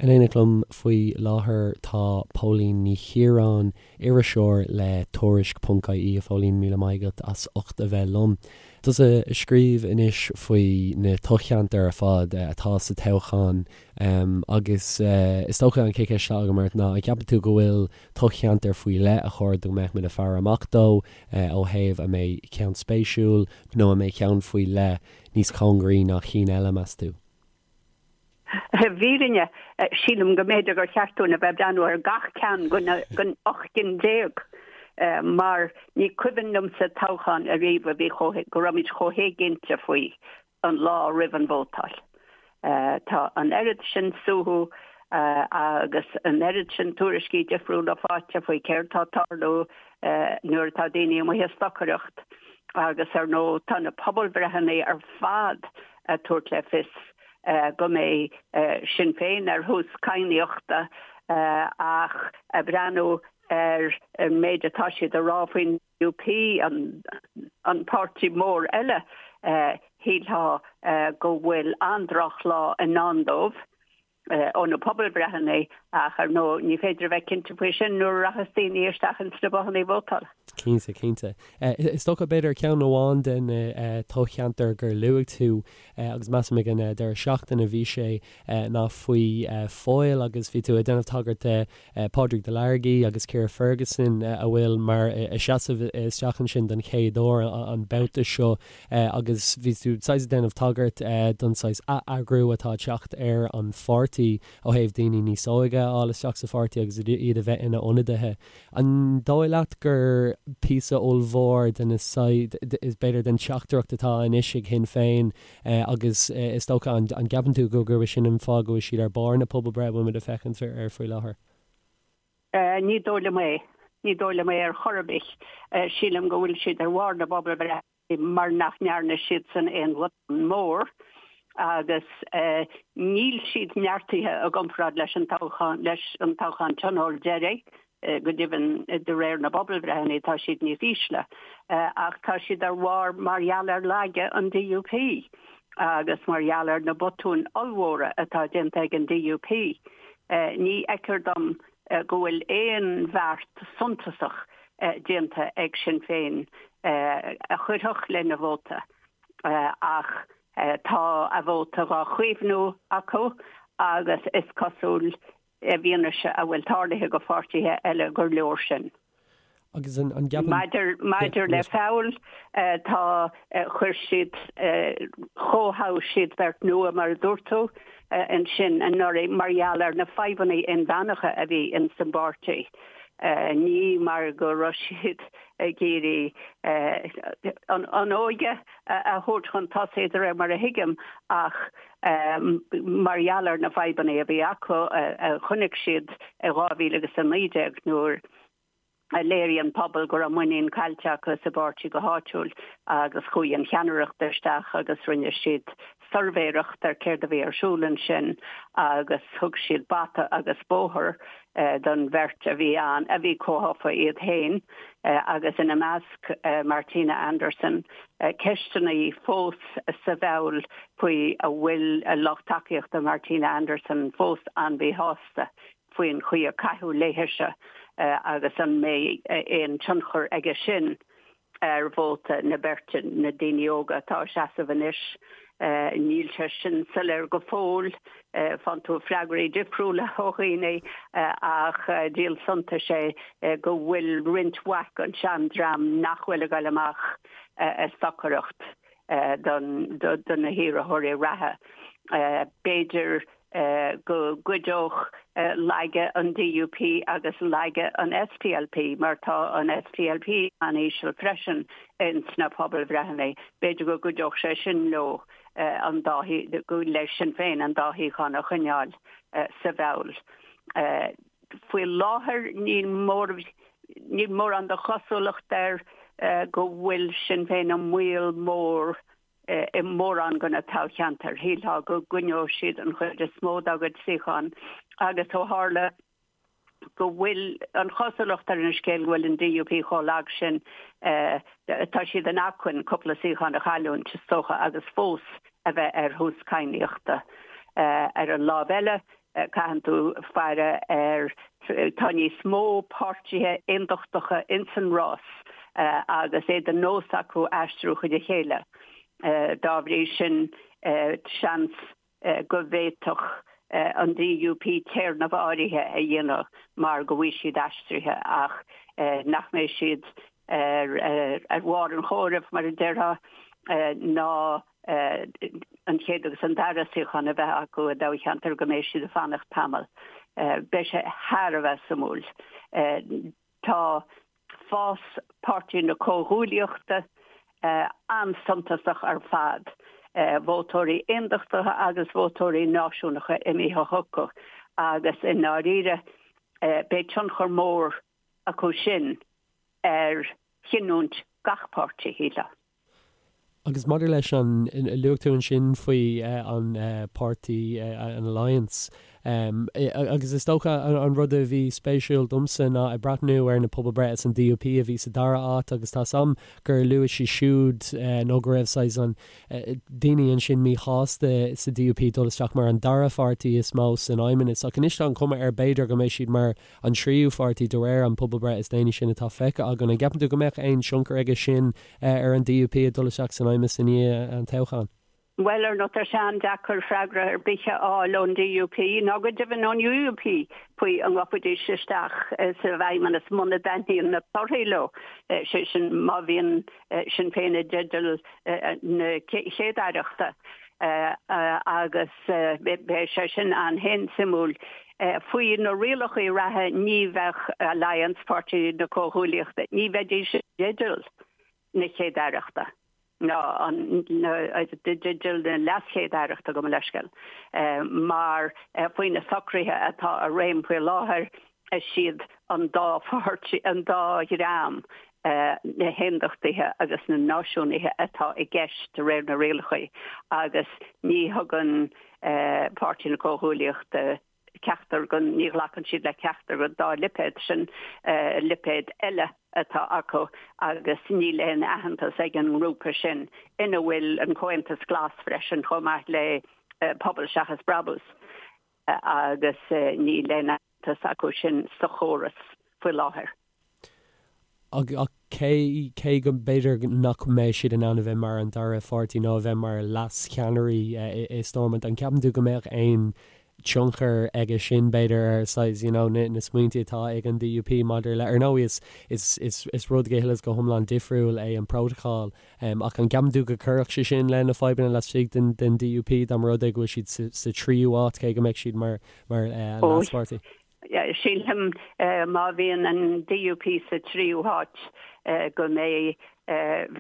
In éineacht liom faoi láthair tá Póilín Ní Chiaráin, iriseoir le Tuairisc ponc ie. A Phóilín, míle maith agat as ucht a bheith liom. Tusa a scríobh anois faoi na toghcheantair ar fad atá sa toghchán agus is dócha an chéad cheist atá agam ort ná an gceapann tú go bhfuil toghcheantar faoi leith a chóir go mbeadh muid ag faire amach dó ó thaobh an mbeidh ceann spéisiúil nó an mbeidh ceann faoi leith níos cóngaraí ná cinn eile, meas tú? I bhfírinne, sílim go mb'fhéidir gur cheart dúinn a bheith ag breathnú ar gach ceann den 18 gcinn mar ní cuimhin liomsa toghchán ariamh a bhí chomh, go raibh muid chomh héiginnte faoi an lá roimh an vótáil. Tá an oiread sin suaitheadh agus an oiread sin tuairiscí difriúla faighte faoi céard tá ag tarlú nuair atá daoine amuigh ag stocaireacht agus ar ndóigh tá na pobalbhreitheanna ar fad ag tabhairt le fios go mbeidh Sinn Féin ar thús cadhnaíochta ach ag breathnú ar an méid atá siad a rá faoin DUP, an páirtí mór eile, shílfeá go bhfuil an-drochlá i ndán dóibh ó na pobalbhreitheanna ach ar ndóigh ní féidir a bheith cinnte faoi sin nuair a rachas daoine isteach ins na bothanna vótála. Cinnte, cinnte. Is dócha, b'fhéidir, ceann amháin de na toghcheantair gur luaigh tú, agus measaim ag an deireadh seachtaine a bhí sé, ná faoi Foyle agus bhí tú ag déanamh tagairt de Pádraig Delargy agus Ciara Ferguson a bhfuil mar ag seasamh isteach ansin don chéad uair an babhta seo agus bhí tú saghas ag déanamh tagairt don saghas atheagrú atá ag teacht ar an pháirtí ó thaobh daoine níos óige a fháil isteach sa pháirtí agus iad a bheith ina n-ionadaithe. An dóigh leat gur píosa ollmhór de na saghas, b'fhéidir, den teachtaireacht atá anois ag Shinn Féin agus is dócha, an gceapann tú gurb é sin an fáth go bhfuil siad ar barr na pobalbhreithe a bhfuil muid ag féachaint air faoi láthair? Ní dóigh liom é. Ní dóigh liom é ar chor ar bith. Sílim go bhfuil siad ar bharr na bpobalbhreithe. mar nach ndearna siadsan aon bhotún mór agus níl siad neartaithe i gcomparáid leis an toghchán leis an toghchán tionóil deiridh, go deimhin de réir na bpobalbhreitheanna tá siad níos ísle ach tá siad ar bharr mar gheall ar laige an DUP agus mar gheall ar na botúin ollmhóra atá déanta ag an DUP. Ní fheictear dom go bhfuil aon bheart suntasach déanta ag Sinn Féin a chuirfeadh lena vóta ach tá a vóta dhá chaomhnú acu agus is cosúil, i bhfianaise a bhfuil tarlaithe go pháirtithe eile, gur leor sin. Agus an gceapann. Maidir, maidir le Feabhal, tá, chuir siad, chomhthoghadh siad beirt nua, mar a dúirt tú, ansin anuraidh mar gheall ar na fadhbanna inmheánacha a bhí ins an bpáirtí. Ní mar go raibh siad ag iarraidh an óige a thabhairt chun tosaigh de réir mar a thuigim ach mar gheall ar na fadhbanna a bhí acu a chonaic siad i 2019 nuair a léirigh an pobal go raibh muinín caillte acu sa bpáirtí go háitiúil agus chuaigh an cheannaireacht isteach agus rinne siad suirbhéireacht ar céard a bhí ar siúl ansin agus thug siad bata agus bóthar don bheirt a bhí ann, a bhí comhthofa iad féin agus ina measc Martina Anderson. Ceisteanna fós sa bhFeabhal faoi an bhfuil lucht tacaíochta Martina Anderson fós an-mhíshásta faoin chaoi a caitheadh léithise agus an mbeidh aon tionchar aige sin ar vóta na beirte, na daoine óga atá ag seasamh anois. Níl sé sin soiléir go fóill. Faigheann tú freagraí difriúla ó dhaoine ach díol suntais é go bhfuil roinnt mhaith den seandream nach bhfuil ag dul amach ag stocaireacht do na hiarrthóirí reatha. B'fhéidir go gcuideodh laige an DUP agus laige an SDLP, mar tá an SDLP an-íseal freisin ins na pobalbhreitheanna, b'fhéidir go gcuideodh sé sin leo an dá, le Sinn Féin an dá shuíochán a choinneáil sa bhFeabhal. Faoi láthair níl mór, níl mórán de chosúlacht air go bhfuil Sinn Féin i mbaol mór i mórán de na toghcheantair. Shílfeá go gcoinneodh siad an chuid is mó dá gcuid suíochán agus ó tharla go bhfuil an chosúlacht ar an scéal go bhfuil an DUP chomh lag sin, tá siad in acmhainn cúpla suíochán a chailliúint, is dócha, agus fós a bheith ar thús cadhnaíochta. Ar an lámh eile. Caitheann tú faire ar, tá níos mó páirtithe aondachtacha ins an rás agus é de nós acu aistriú chuig a chéile. Dá bhrí sin, seans go bhféadfadh an DUP téarnamh áirithe a dhéanamh mar go bhfuil siad aistrithe ach nach mbeidh siad ar bharr an chomhairimh, mar a déarfá, ná an chéad agus an dara suíochán a bheith acu i dtoghcheantar go mbeidh siad ag fanacht tamall. Beidh sé thar a bheith suimiúil. Tá fás Páirtí na Comhghuaillíochta an-suntasach ar fad, vótóirí aondachtacha agus vótóirí náisiúnacha imithe chucu agus i ndáiríre beidh tionchar mór acu sin ar chinniúint gach páirtí, shílfeá. Agus maidir leis an, luaigh tú ansin faoi an páirtí, an Alliance, agus is dócha an rud a bhí spéisiúil domsa ná ag breathnú ar na pobalbhreithe is an DUP a bhí sa dara áit agus tá 's a'm gur luaigh siad siúd nó go raibh saghas an daoine ansin míshásta sa DUP dul isteach mar an dara pháirtí is mó san fheidhmeannas ach anois tá an chuma air b'fhéidir go mbeidh siad mar an tríú pháirtí de réir an pobalbhreith is déanaí sin atá feicthe againn. An gceapann tú go mbeadh aon tionchar aige sin ar an DUP ag dul isteach san fheidhmeannas i ndiaidh an toghcháin? Bhuel, ar ndóigh, tá sé an-deacair freagra ar bith a fháil ón DUP, ná go deimhin ón UUP, faoi an ngabhfaidís isteach sa bhfeidhmeannas muna dtaitníonn na torthaí leo, sé sin má bhíonn Sinn Féin i dteideal na chéad-aireachta agus beidh sé sin an-suimiúil. Faoi na rialacha reatha ní bheadh Alliance, Páirtí na Comhghuaillíochta, ní bheidís i dteideal na chéad-aireachta ná i dteideal na leaschéad-aireachta, gabh mo leithscéal, mar faoi na socruithe atá i réim faoi láthair is iad an dá pháirtí, an dá dhream, na hAondachtaithe agus na Náisiúnaithe atá i gceist de réir na rialacha agus ní thugann Páirtí na Comhghuaillíochta ceachtar den, ní ghlacann siad le ceachtar den dá lipéad sin, lipéad eile atá acu agus níl aon aitheantas ag an ngrúpa sin, ina bhfuil an Comhaontas Glas freisin chomh maith le Pobal Seachas Brabús, agus níl aon aitheantas acu sin sa chóras faoi láthair. Ach cé, cé go mb'fhéidir nach mbeidh siad in ann a bheith mar an dara pháirtí nó a bheith mar leas-cheannairí i Stormont, an gceapann tú go mbeadh aon tionchar aige sin, b'fhéidir, ar saghas, you know, na, na smaointe atá ag an DUP maidir le, ar ndóigh is, is, is, is rud go huile is go hiomlán difriúil é an prótacal, ach an gceapann tú go gcuirfeadh sé sin le na fadhbanna laistigh den, den DUP dá mba rud é go bhfuil siad sa, sa tríú háit, cé go mbeadh siad mar, mar leas-pháirtí? Sílim má bhíonn an DUP sa tríú háit go mbeidh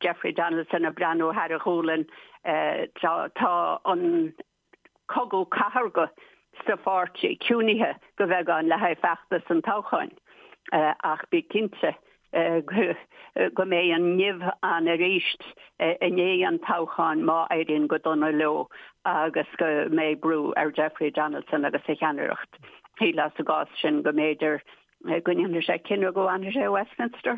Jeffrey Donaldson ag breathnú thar a ghualainn. Tá an cogadh cathartha sa pháirtí ciúnaithe go beagán le haghaidh feachtas an toghcháin ach bí cinnte go mbeidh an nimh ann arís i ndiaidh an toghcháin má éiríonn go dona leo agus go mbeidh brú ar Jeffrey Donaldson agus a cheannaireacht. Shílfeá sa gcás sin go mb'fhéidir go ndéanfaidh sé cinneadh go bhfanfaidh sé i Westminster.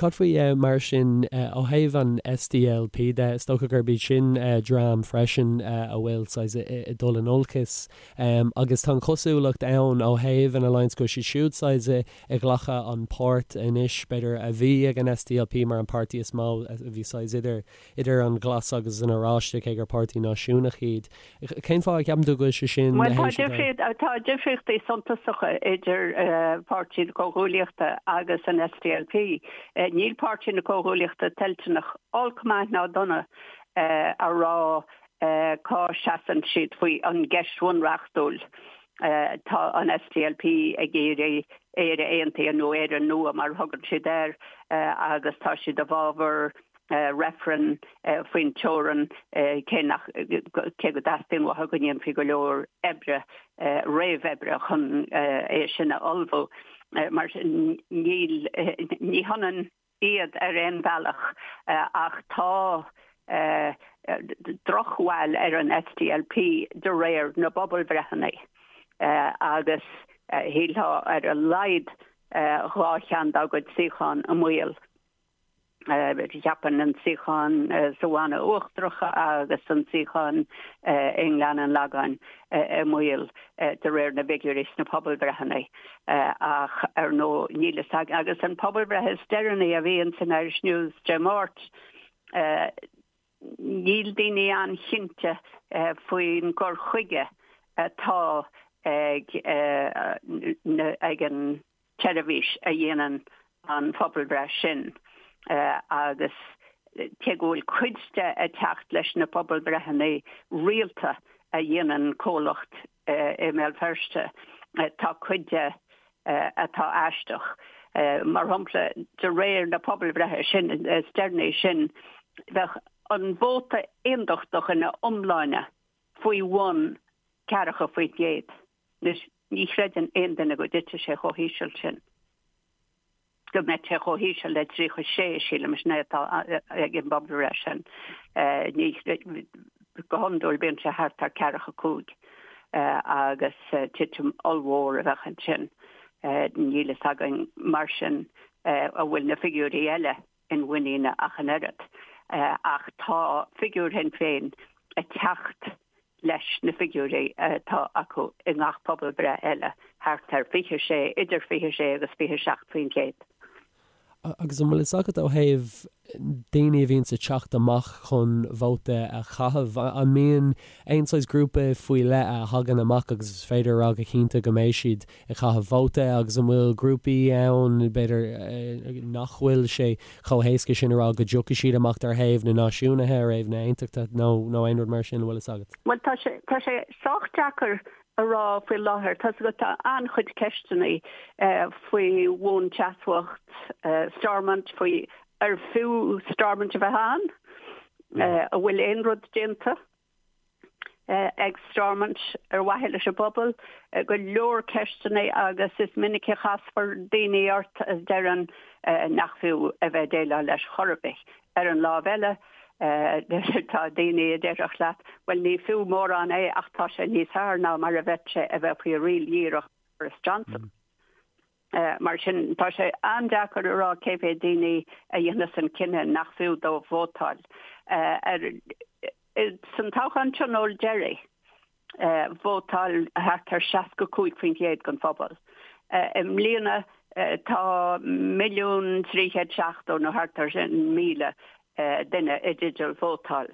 Cad faoi mar sin ó thaobh an SDLP de? Is dócha gurb iad sin dream freisin a bhfuil saghas ag dul in olcas agus tá an chosúlacht ann ó thaobh an Alliance go bhfuil siad siúd saghas ag glacadh an páirt anois b'fhéidir a bhí ag an SDLP mar an páirtí is mó a bhí saghas idir idir an Glas agus an Oráiste cé gur páirtí náisiúnach iad. Cén fáth a gceapann tú go bhfuil sé sin Bhuel, tá difríocht, tá difríochtaí suntasacha idir Páirtí na Comhghuaillíochta agus an SDLP. Níl Páirtí na Comhghuaillíochta toilteanach olc maith ná dona a rá cá seasann siad faoi an gceist bhunreachtúil. Tá an SDLP ag iarraidh Éire Aontaithe nó Éire Nua mar a thugann siad air agus tá siad i bhfabhar reifreann faoin teorainn, cé nach, cé go dteastaíonn uathu go ndéanfaí go leor oibre, réamhoibre chun é sin a ullmhú. Mar sin, níl, ní hionann iad ar aon bhealach ach tá drochbhail ar an SDLP de réir na bpobalbhreitheanna agus shílfeá ar a laghad dhá cheann dá gcuid suíochán i mbaol. Cheapfainn an suíochán sa Bhanna Uachtarach agus an suíochán i nGleann an Lagáin i mbaol de réir na bhfigiúirí sna pobalbhreitheanna. Ach ar ndóigh níl fhios againn. Agus an pobalbhreith is deireanaí a bhí ins an Irish News Dé Máirt, níl daoine an-chinnte faoin gcur chuige atá ag ag an tseirbhís a dhéanann an phobalbhreith sin agus cé go bhfuil cuid de ag teacht leis na pobalbhreitheanna rialta a dhéanann comhlacht i mBéal Feirste, tá cuid de atá aisteach. Mar shampla, de réir na pobalbhreithe sin is deireanaí sin, bheadh an vóta aondachtach ina iomláine faoi bhun 40%. Anois, ní chreideann aon duine go dtitfidh sé chomh híseal sin, go mbeidh sé chomh híseal le 36, sílim, sin é atá ag an bpobalbhreith sin. Ní, go hiondúil bíonn sé thart ar 45 agus titim ollmhór a bheadh ansin. Níl fhios againn mar sin an bhfuil na figiúirí eile inmhuiníne ach an oiread. Ach tá figiúr Shinn Féin ag teacht leis na figiúirí atá acu i ngach pobalbhreith eile, thart ar 26, idir 26 agus 27%. Agus an bhfuil fhios agat ó thaobh daoine a bhíonns ag teacht amach chun vóta a chaitheamh, an mbíonn aon saghas grúpa faoi leith a thagann amach agus is féidir a rá go cinnte go mbeidh siad ag caitheamh vóta agus an bhfuil grúpaí ann, b'fhéidir, nach bhfuil sé chomh héasca sin a rá go dtiocfaidh siad amach ar thaobh na náisiúnaithe, ar thaobh na aontachtaithe nó nó aon rud mar sin, an bhfuil fhios agat? Bhuel, tá sé, tá sé sách deacair a rá faoi láthair. Tá 'fhios agat, tá an-chuid ceisteanna faoi bhuanseasmhacht Stormont, faoi ar fiú Stormont a bheith ann, an bhfuil aon rud déanta. ag Stormont ar mhaithe leis an bpobal, go leor ceisteanna agus is minic a chasfar daoine ort a deireann nach fiú a bheith ag déileáil leis chor ar bith. Ar an lámh eile, tá daoine a déarfadh leat, bhuel ní fiú mórán é ach tá sé níos fearr ná mar a bheadh sé a bheith faoi riail dhíreach Boris Johnson. Mar sin, tá sé an-deacair a rá cé mhéad daoine a dhéanfas an cinneadh nach fiú dóibh vótáil. San toghchán tionóil deiridh, vótáil thart ar 65% den phobal. I mbliana, tá 1,370,000 nó thart ar sin míle duine i dteideal vótáil.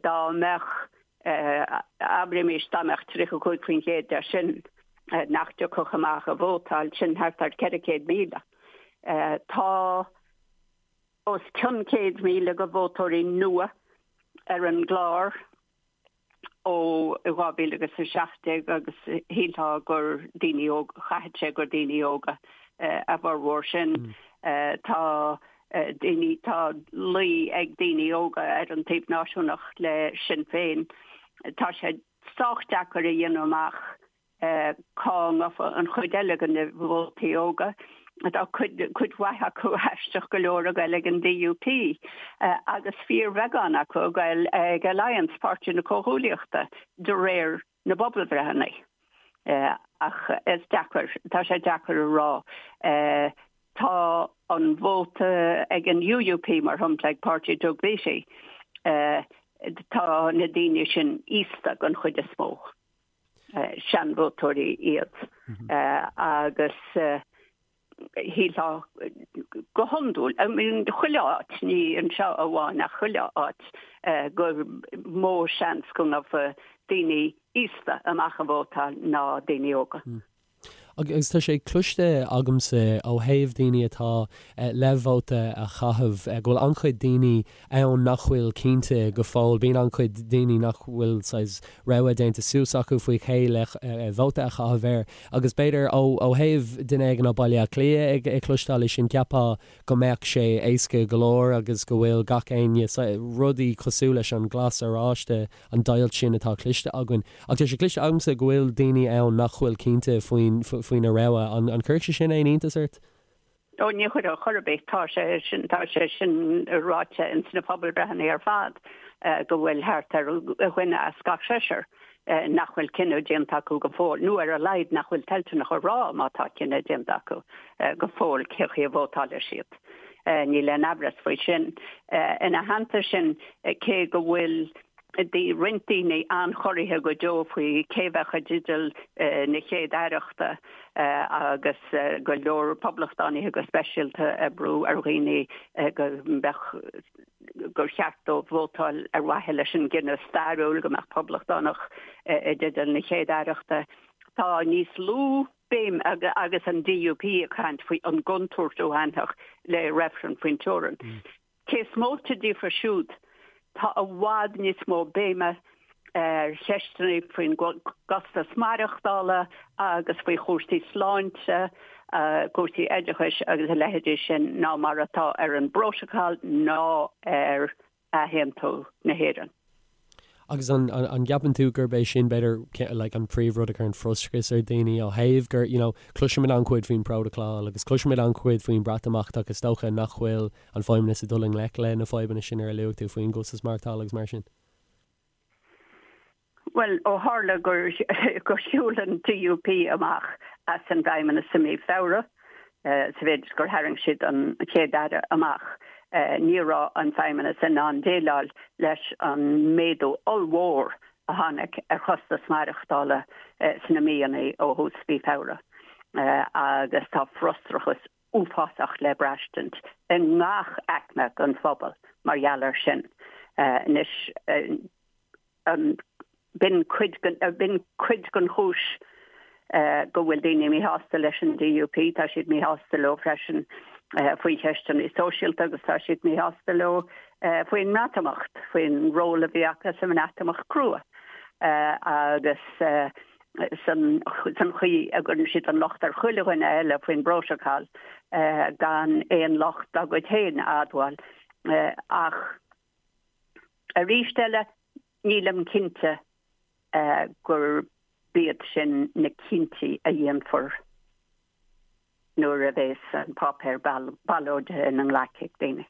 Dá mbeadh Abraimis dá mbeadh 35% de sin nach dtiocfadh amach a vótáil, sin thart ar 400,000. Tá os cionn 100,000 de vótóirí nua ar an gclár ó 2017 agus shílfeá gur daoine óga, chaithfeadh sé gur daoine óga a bhformhór sin. Tá daoine, tá luí ag daoine óga ar an taobh náisiúnach le Sinn Féin. Tá sé sách deacair a dhéanamh amach cá ngabhfaidh an chuid eile de na vótaí óga. Tá cuid, cuid mhaith acu aisteach go leor ag goil ag an DUP agus fíorbheagán acu ag goil ag Alliance, Páirtí na Comhghuaillíochta, de réir na bpobalbhreitheanna. Ach is deacair, tá sé deacair a rá. Tá an vóta ag an UUP, mar shampla, ag páirtí Doug Beattie, tá na daoine sin aosta den chuid is mó, seanvótóirí iad, agus shílfeá go hiondúil, I mean chuile áit, ní anseo amháin ach chuile áit, gur mó seans go ngabhfaidh daoine aosta amach a vótáil ná daoine óga. Agus tá sé cloiste agamsa ó thaobh daoine atá le vóta a chaitheamh go bhfuil an-chuid daoine ann nach bhfuil cinnte go fóill. Bíonn an-chuid daoine nach bhfuil saghas rogha déanta suas acu faoi cé le vóta a chaitheamh air. Agus b'fhéidir ó thaobh duine éigin ó Baile Átha Cliath ag cloisteáil é sin, cheapfá go mbeadh sé éasca go leor agus go bhfuil gach éinne, rudaí cosúil leis an glas oráiste, an deighilt sin atá cloiste againn. Ach tá sé cloiste agamsa go bhfuil daoine ann nach bhfuil cinnte faoin, faoina rogha. An, an gcuirfeadh sé sin aon iontas ort? Ó, ní chuirfeadh chor ar bith. Tá sé sin, tá sé sin ráite ins na pobalbhreitheanna ar fad go bhfuil thart ar dhuine as gach seisear nach bhfuil cinneadh déanta acu go fóill, nó ar a laghad nach bhfuil toilteanach a rá má tá cinneadh déanta acu go fóill cé chaoi a vótálfaidh siad. Níl aon amhras faoi sin. Ina theannta sin, cé go bhfuil roinnt daoine an-chorraithe go deo faoi cé bheadh i dteideal na chéad-aireachta agus go leor poblachtánaithe go speisialta ag brú ar dhaoine go mbeadh gur cheart dóibh vótáil ar mhaithe leis an gcinneadh stairiúil go mbeadh poblachtánach i dteideal na chéad-aireachta. Tá níos lú béim agus an DUP ag caint faoi an gcontúirt a bhainfeadh le reifreann faoin teorainn. Cé is móite díofa siúd, tá i bhfad níos mó béime ar cheisteanna faoin gcostas maireachtála agus faoi chúrsaí sláinte, cúrsaí oideachais agus a leithéidí sin ná mar atá ar an bPrótacal ná ar athaontú na hÉireann. Agus an an gceapann tú gurb é sin b'fhéidir like an príomhrud a chuireann frustrachas ar dhaoine ó thaobh gur you know cloisimid an-chuid faoin bPrótacal agus cloisimid an-chuid faoin Bhreatimeacht ach is dócha nach bhfuil an Feidhmeannas ag dul i ngleic le na fadhbanna sin ar a luaigh tú faoin gcostas maireachtála agus mar sin? Bhuel, ó tharla gur gur shiúil an DUP amach as an bhFeidhmeannas i mí Feabhra, sa mhéid is gur tharraing siad an Chéad-Aire amach, ní raibh an Feidhmeannas in ann déileáil leis an méadú ollmhór a tháinig ar chostas maireachtála sna míonna ó thús mhí Feabhra. Agus tá frustrachas uafásach le braistint i ngach aicme den phobal mar gheall air sin. Anois, b'in cuid b'in cuid den chúis go bhfuil daoine míshásta leis an DUP. Tá siad míshásta leo freisin faoi cheisteanna sóisialta agus tá siad míshásta leo faoin mBreatimeacht, faoin ról a bhí acu sa mBreatimeacht crua agus san chaoi a gcuireann siad an locht ar chuile dhuine eile faoin bprótacal gan aon locht dá gcuid féin a admháil. Ach arís eile, nílim cinnte gurb iad sin na cinntí a dhéanfar nuair a bheas an páipéar ballóide ina nglaic ag daoine.